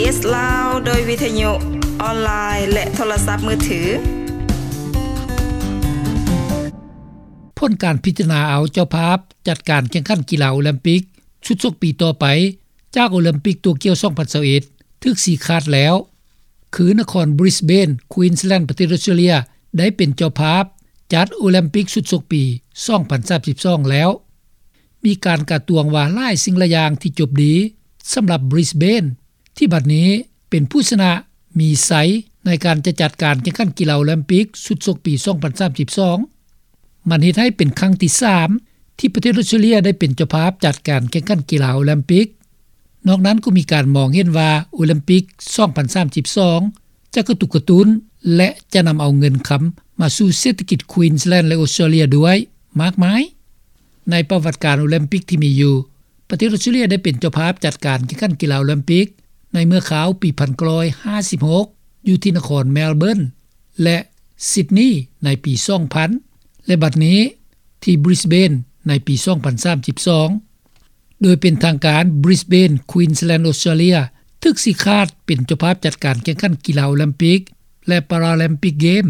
ເອສ ລາວ ໂດຍວິທະຍຸ ອອນລາຍ ແລະ ໂທລະສັບມືຖື. ຜົນການພິຈາລະນາເອົາເຈົ້າພາບຈັດການແຂ່ງຂັນກິລາໂອລິມປິກຊຸດຊົກປີຕໍ່ໄປ ຈາກໂອລິມປິກໂຕກຽວສອງພັນຊາວເອັດ ຖືກຊີ້ຂາດແລ້ວ ຄືນະຄອນບຣິສເບນ ຄວີນສແລນ ປະເທດອົດສະຕຣາເລຍ ໄດ້ເປັນເຈົ້າພາບຈັດໂອລິມປິກຊຸດຊົກປີສອງພັນສາມສິບສອງແລ້ວ. ມີການກາດຕວງວ່າຫຼາຍສິ່ງຫຼາຍຢ່າງທີ່ຈົບດີສຳລັບບຣິສເບນ ທີ່ບັດນີ້ເປັນຜູ້ຊະນະມີໄຊໃນການຈະຈັດການແຂ່ງຂັນກິລາໂອລິມປິກຊຸດຊົກປີສອງພັນສາມສິບສອງ. ມັນເຮັດໃຫ້ເປັນຄັ້ງທີສາມທີ່ປະເທດອົດສະຕຣາເລຍໄດ້ເປັນເຈົ້າພາບຈັດການແຂ່ງຂັນກິລາໂອລິມປິກ. ນອກນັ້ນກໍມີການມອງເຫັນວ່າໂອລິມປິກສອງພັນສາມສິບສອງຈະກະຕຸກກະຕຸ້ນ ແລະ ຈະນຳເອົາເງິນຄຳມາສູ່ເສດຖະກິດຄວີນສແລນ ແລະ ອົດສະຕຣາເລຍດ້ວຍມາກມາຍ. ໃນປະຫວັດການໂອລິມປິກທີ່ມີຢູ່, ປະເທດອົດສະຕຣາເລຍໄດ້ເປັນເຈົ້າພາບຈັດການແຂ່ງຂັນກິລາໂອລິມປິກໃນເມື່ອຄາວປີພັນເກົ້າຮ້ອຍຫ້າສິບຫົກ ຢູ່ທີ່ນະຄອນແມລເບີນ ແລະ ຊິດນີໃນປີສອງພັນ ແລະ ບັດນີ້ທີ່ບຣິສເບນໃນປີສອງພັນສາມສິບສອງ. ໂດຍເປັນທາງການ ບຣິສເບນ ຄວີນສແລນ ອົດສະຕຣາເລຍ ຖືກຊີ້ຂາດເປັນເຈົ້າພາບຈັດການແຂ່ງຂັນກິລາໂອລິມປິກ ແລະ ປາຣາລິມປິກເກມ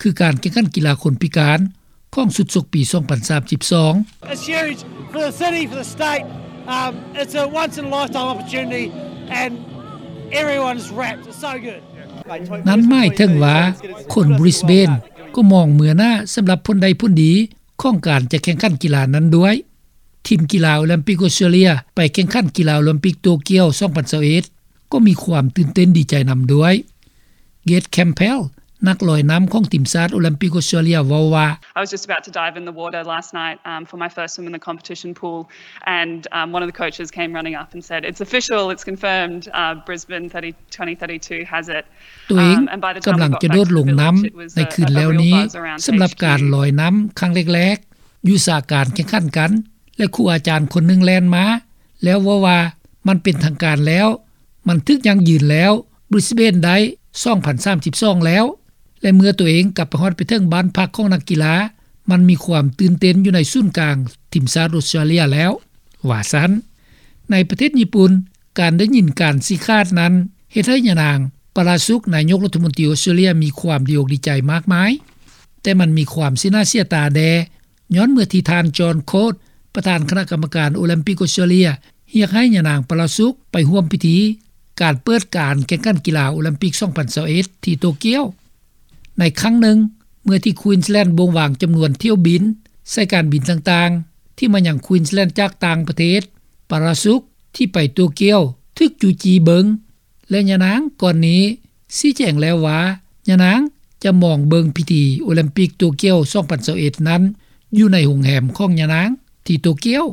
ຄືການແຂ່ງຂັນກິລາຄົນພິການຂອງຊຸດຊົກປີສອງພັນສາມສິບສອງ. It's huge for the city, for the state. Um, it's a once in a lifetime opportunity, and everyone's wrapped. It's so good. ນັ້ນໝາຍເຖິງວ່າຄົນບຣິສເບນກໍມອງເມືອໜ້າສຳລັບຜົນໄດ້ຜົນດີຂອງການຈະແຂ່ງຂັນກິລານັ້ນດ້ວຍ. ທີມກິລາໂອລິມປິກອົດສະຕຣາເລຍໄປແຂ່ງຂັນກິລາໂອລິມປິກໂຕກຽວສອງພັນຊາວເອັດ ກໍມີຄວາມຕື່ນເຕັ້ນດີໃຈນຳດ້ວຍ. ເກດ ແຄມເພລ ນັກລອຍນ້ຳຂອງທີມຊາດໂອລິມປິກອົດສະຕຣາເລຍເວົ້າວ່າ, I was just about to dive in the water last night, um, for my first swim in the competition pool, and, um, one of the coaches came running up and said, "It's official, it's confirmed, uh, Brisbane thirty, twenty thirty-two has it." ຕົວເອງກຳລັງຈະໂດດລົງນ້ຳໃນຄືນແລ້ວນີ້ ສຳລັບການລອຍນ້ຳຄັ້ງແລກໆ ຢູ່ສາການແຂ່ງຂັນກັນ ແລະ ຄູອາຈານຄົນໜຶ່ງແລ່ນມາ ແລ້ວເວົ້າວ່າ ມັນເປັນທາງການແລ້ວ, ມັນຖືກຢັ້ງຢືນແລ້ວ, ບຣິສເບນໄດ້ສອງພັນສາມສິບສອງແລ້ວ. ແລະ ເມື່ອຕົວເອງກັບໄປຮອດໄປເຖິງບ້ານພັກຂອງນັກກິລາ, ມັນມີຄວາມຕື່ນເຕັ້ນຢູ່ໃນສູນກາງທີມຊາດອົດສະຕຣາເລຍແລ້ວ, ວ່າຊັ້ນ. ໃນປະເທດຍີ່ປຸ່ນ, ການໄດ້ຍິນການຊີ້ຂາດນັ້ນ ເຮັດໃຫ້ຍານາງ ປາຣາສຸກ ນາຍົກລັດຖະມົນຕີອົດສະຕຣາເລຍ ມີຄວາມດີອົກດີໃຈມາກມາຍ, ແຕ່ມັນມີຄວາມເສຍໜ້າເສຍຕາແດ່ ຍ້ອນເມື່ອທີ່ທ່ານ ຈອນ ໂຄດ ປະທານຄະນະກຳມະການໂອລິມປິກອົດສະຕຣາເລຍ ຮຽກໃຫ້ຍານາງ ປາຣາສຸກ ໄປຮ່ວມພິທີການເປີດການແຂ່ງຂັນກິລາໂອລິມປິກສອງພັນຊາວເອັດ ທີ່ໂຕກຽວ. ໃນຄັ້ງໜຶ່ງ ເມື່ອທີ່ຄວີນສແລນ ບົ່ງວາງຈຳນວນຖ້ຽວບິນສາຍການບິນຕ່າງໆ ທີ່ມາຍັງຄວີນສແລນຈາກຕ່າງປະເທດ, ປາຣາສຸກ ທີ່ໄປໂຕກຽວ ຖືກຈູ້ຈີ້ເບິ່ງ ແລະ ຍານາງກ່ອນນີ້ຊີ້ແຈງແລ້ວວ່າ ຍານາງຈະມອງເບິ່ງພິທີໂອລິມປິກໂຕກຽວສອງພັນຊາວເອັດນັ້ນ ຢູ່ໃນໂຮງແຮມຂອງຍານາງທີ່ໂຕກຽວ.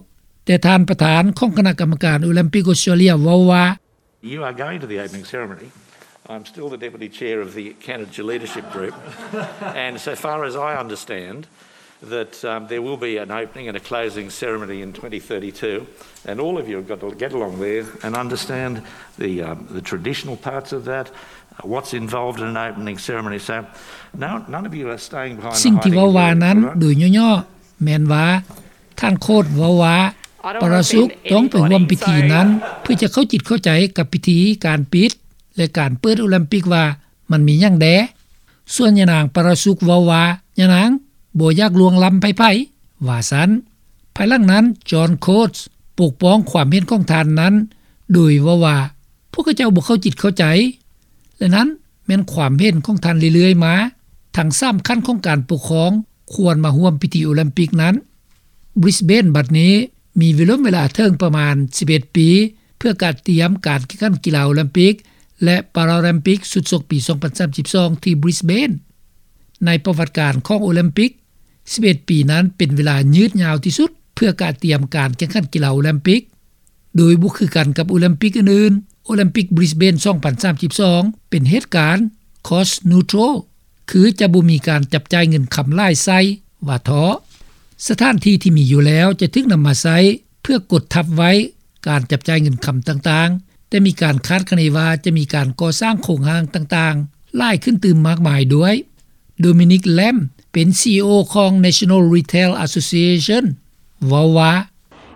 ແຕ່ທ່ານປະທານຂອງຄະນະກຳມະການໂອລິມປິກອົດສະຕຣາເລຍເວົ້າວ່າ, You are going to the opening ceremony. I'm still the deputy chair of the Candidates Leadership Group. And so far as I understand, that, um, there will be an opening and a closing ceremony in twenty thirty-two, and all of you have got to get along there and understand the, um, the traditional parts of that, uh, what's involved in an opening ceremony. So, no, none of you are staying behind the hiding. ສິ່ງທີ່ເວົ້າວ່ານັ້ນ ໂດຍຫຍໍ້ໆ ແມ່ນວ່າ ທ່ານ ໂຄດ ເວົ້າວ່າ ປາຣາສຸກ ຕ້ອງໄປຮ່ວມພິທີນັ້ນ ເພື່ອຈະເຂົ້າຈິດເຂົ້າໃຈກັບພິທີການປິດ ແລະ ການເປີດໂອລິມປິກວ່າ ມັນມີຫຍັງແດ່? ສ່ວນຍານາງ ປາຣາສຸກ ເວົ້າວ່າ ຍານາງບໍ່ຢາກລ່ວງລ້ຳໃຜໆ ວ່າຊັ້ນ. ພາຍຫຼັງນັ້ນ ຈອນ ໂຄດ ປົກປ້ອງຄວາມເຫັນຂອງທ່ານນັ້ນ ໂດຍເວົ້າວ່າ ພວກເຂົາເຈົ້າບໍ່ເຂົ້າຈິດເຂົ້າໃຈ ແລະ ນັ້ນແມ່ນຄວາມເຫັນຂອງທ່ານເລື້ອຍໆມາ, ທັງສາມຂັ້ນຂອງການປົກຄອງຄວນມາຮ່ວມພິທີໂອລິມປິກນັ້ນ. ບຣິສເບນ ບັດນີ້ມີເວລາເວລາເຖິງປະມານສິບເອັດປີ ເພື່ອກະຕຽມການແຂ່ງຂັນກິລາໂອລິມປິກ ແລະ ປາຣາລິມປິກຊຸດຊົກປີສອງພັນສາມສິບສອງ ທີ່ບຣິສເບນ. ໃນປະຫວັດການຂອງໂອລິມປິກ, ສິບເອັດປີນັ້ນເປັນເວລາຍືດຍາວທີ່ສຸດເພື່ອກະຕຽມການແຂ່ງຂັນກິລາໂອລິມປິກ, ໂດຍບໍ່ຄືກັນກັບໂອລິມປິກອື່ນໆ. ໂອລິມປິກບຣິສເບນສອງພັນສາມສິບສອງເປັນເຫດການ cost neutral ຄືຈະບໍ່ມີການຈັບຈ່າຍເງິນຄຳຫຼາຍໃສ່ ວ່າເທາະ. ສະຖານທີ່ທີ່ມີຢູ່ແລ້ວຈະຖືກນຳມາໃຊ້ເພື່ອກົດທັບໄວ້ການຈັບຈ່າຍເງິນຄຳຕ່າງໆ, ແຕ່ມີການຄາດຄະເນວ່າຈະມີການກໍ່ສ້າງໂຄງຮ່າງຕ່າງໆຫຼາຍຂຶ້ນຕື່ມມາກມາຍດ້ວຍ. ໂດມິນິກ ແລມ ເປັນ ຊີອີໂອ ຂອງ National Retail Association ເວົ້າວ່າ,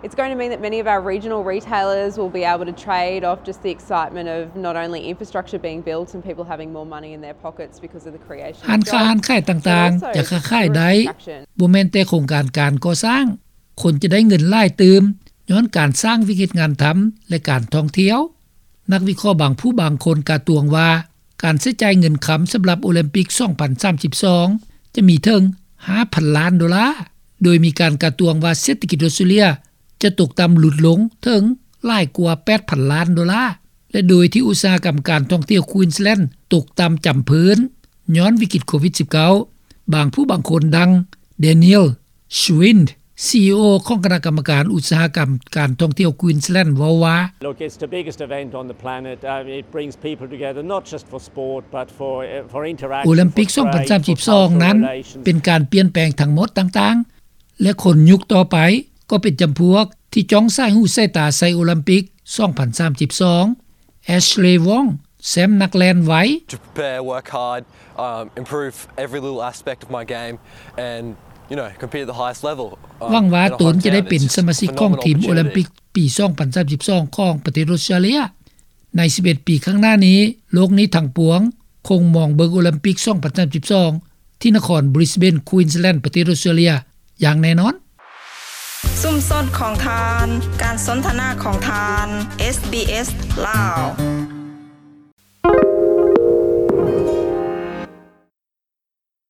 It's going to mean that many of our regional retailers will be able to trade off just the excitement of not only infrastructure being built and people having more money in their pockets because of the creation of jobs, ຮ້ານຄ້າຮ້ານຂາຍຕ່າງໆຈະຄ້າຂາຍໄດ້. ບໍ່ແມ່ນແຕ່ໂຄງການການກໍ່ສ້າງ, ຄົນຈະໄດ້ເງິນຫຼາຍຕື່ມ ຍ້ອນການສ້າງວິກເຮັດງານທຳ ແລະ ການທ່ອງທ່ຽວ. ນັກວິເຄາະບາງຜູ້ບາງຄົນກາດຕວງວ່າ ການໃຊ້ຈ່າຍເງິນຄຳສຳລັບໂອລິມປິກ ສອງພັນສາມສິບສອງ ຈະມີເຖິງ ຫ້າພັນລ້ານໂດລາ, ໂດຍມີການກາດຕວງວ່າເສດຖະກິດອອສເຕຣເລຍຈະຕົກຕ່ຳຫຼຸດລົງເຖິງຫຼາຍກວ່າ ແປດພັນລ້ານໂດລາ ແລະ ໂດຍທີ່ອຸດສາຫະກຳການທ່ອງທ່ຽວ Queensland ຕົກຕ່ຳຈຳເພີ້ນ ຍ້ອນວິກິດໂຄວິດສິບເກົ້າ. ບາງຜູ້ບາງຄົນ ດັ່ງ Daniel Schwind, ຊີອີໂອ ຂອງຄະນະກຳມະການອຸດສາຫະກຳການທ່ອງທ່ຽວ Queensland ເວົ້າວ່າ Look, it's the biggest event on the planet. Uh, it brings people together, not just for sport, but for, uh, for interaction, ໂອລິມປິກ ສອງພັນສາມສິບສອງ ນັ້ນ ເປັນການປ່ຽນແປງທັງໝົດຕ່າງໆ ແລະ ຄົນຍຸກຕໍ່ໄປກໍເປັນຈຳພວກທີ່ຈ້ອງສາຍຫູສາຍຕາໃສ່ໂອລິມປິກ ສອງພັນສາມສິບສອງ. Ashley Wong, ແຊ້ມນັກແລ່ນໄວ To prepare, work hard, um, improve every little aspect of my game and, you know, compete at the highest level. Um, ຫວັງວ່າຕົນຈະໄດ້ເປັນສະມາຊິກຂອງທີມໂອລິມປິກປີ ສອງພັນສາມສິບສອງ ຂອງປະເທດອອສເຕຣເລຍ. ໃນສິບເອັດປີຂ້າງໜ້ານີ້, ໂລກນີ້ທັງປວງຄົງມອງເບິ່ງໂອລິມປິກ ສອງພັນສາມສິບສອງ ທີ່ນະຄອນ Brisbane, Queensland ປະເທດອອສເຕຣເລຍຢ່າງແນ່ນອນ. ຊຸມຊົນຂອງທ່ານ, ການສົນທະນາຂອງທ່ານ, ເອສ ບີ ເອສ ລາວ.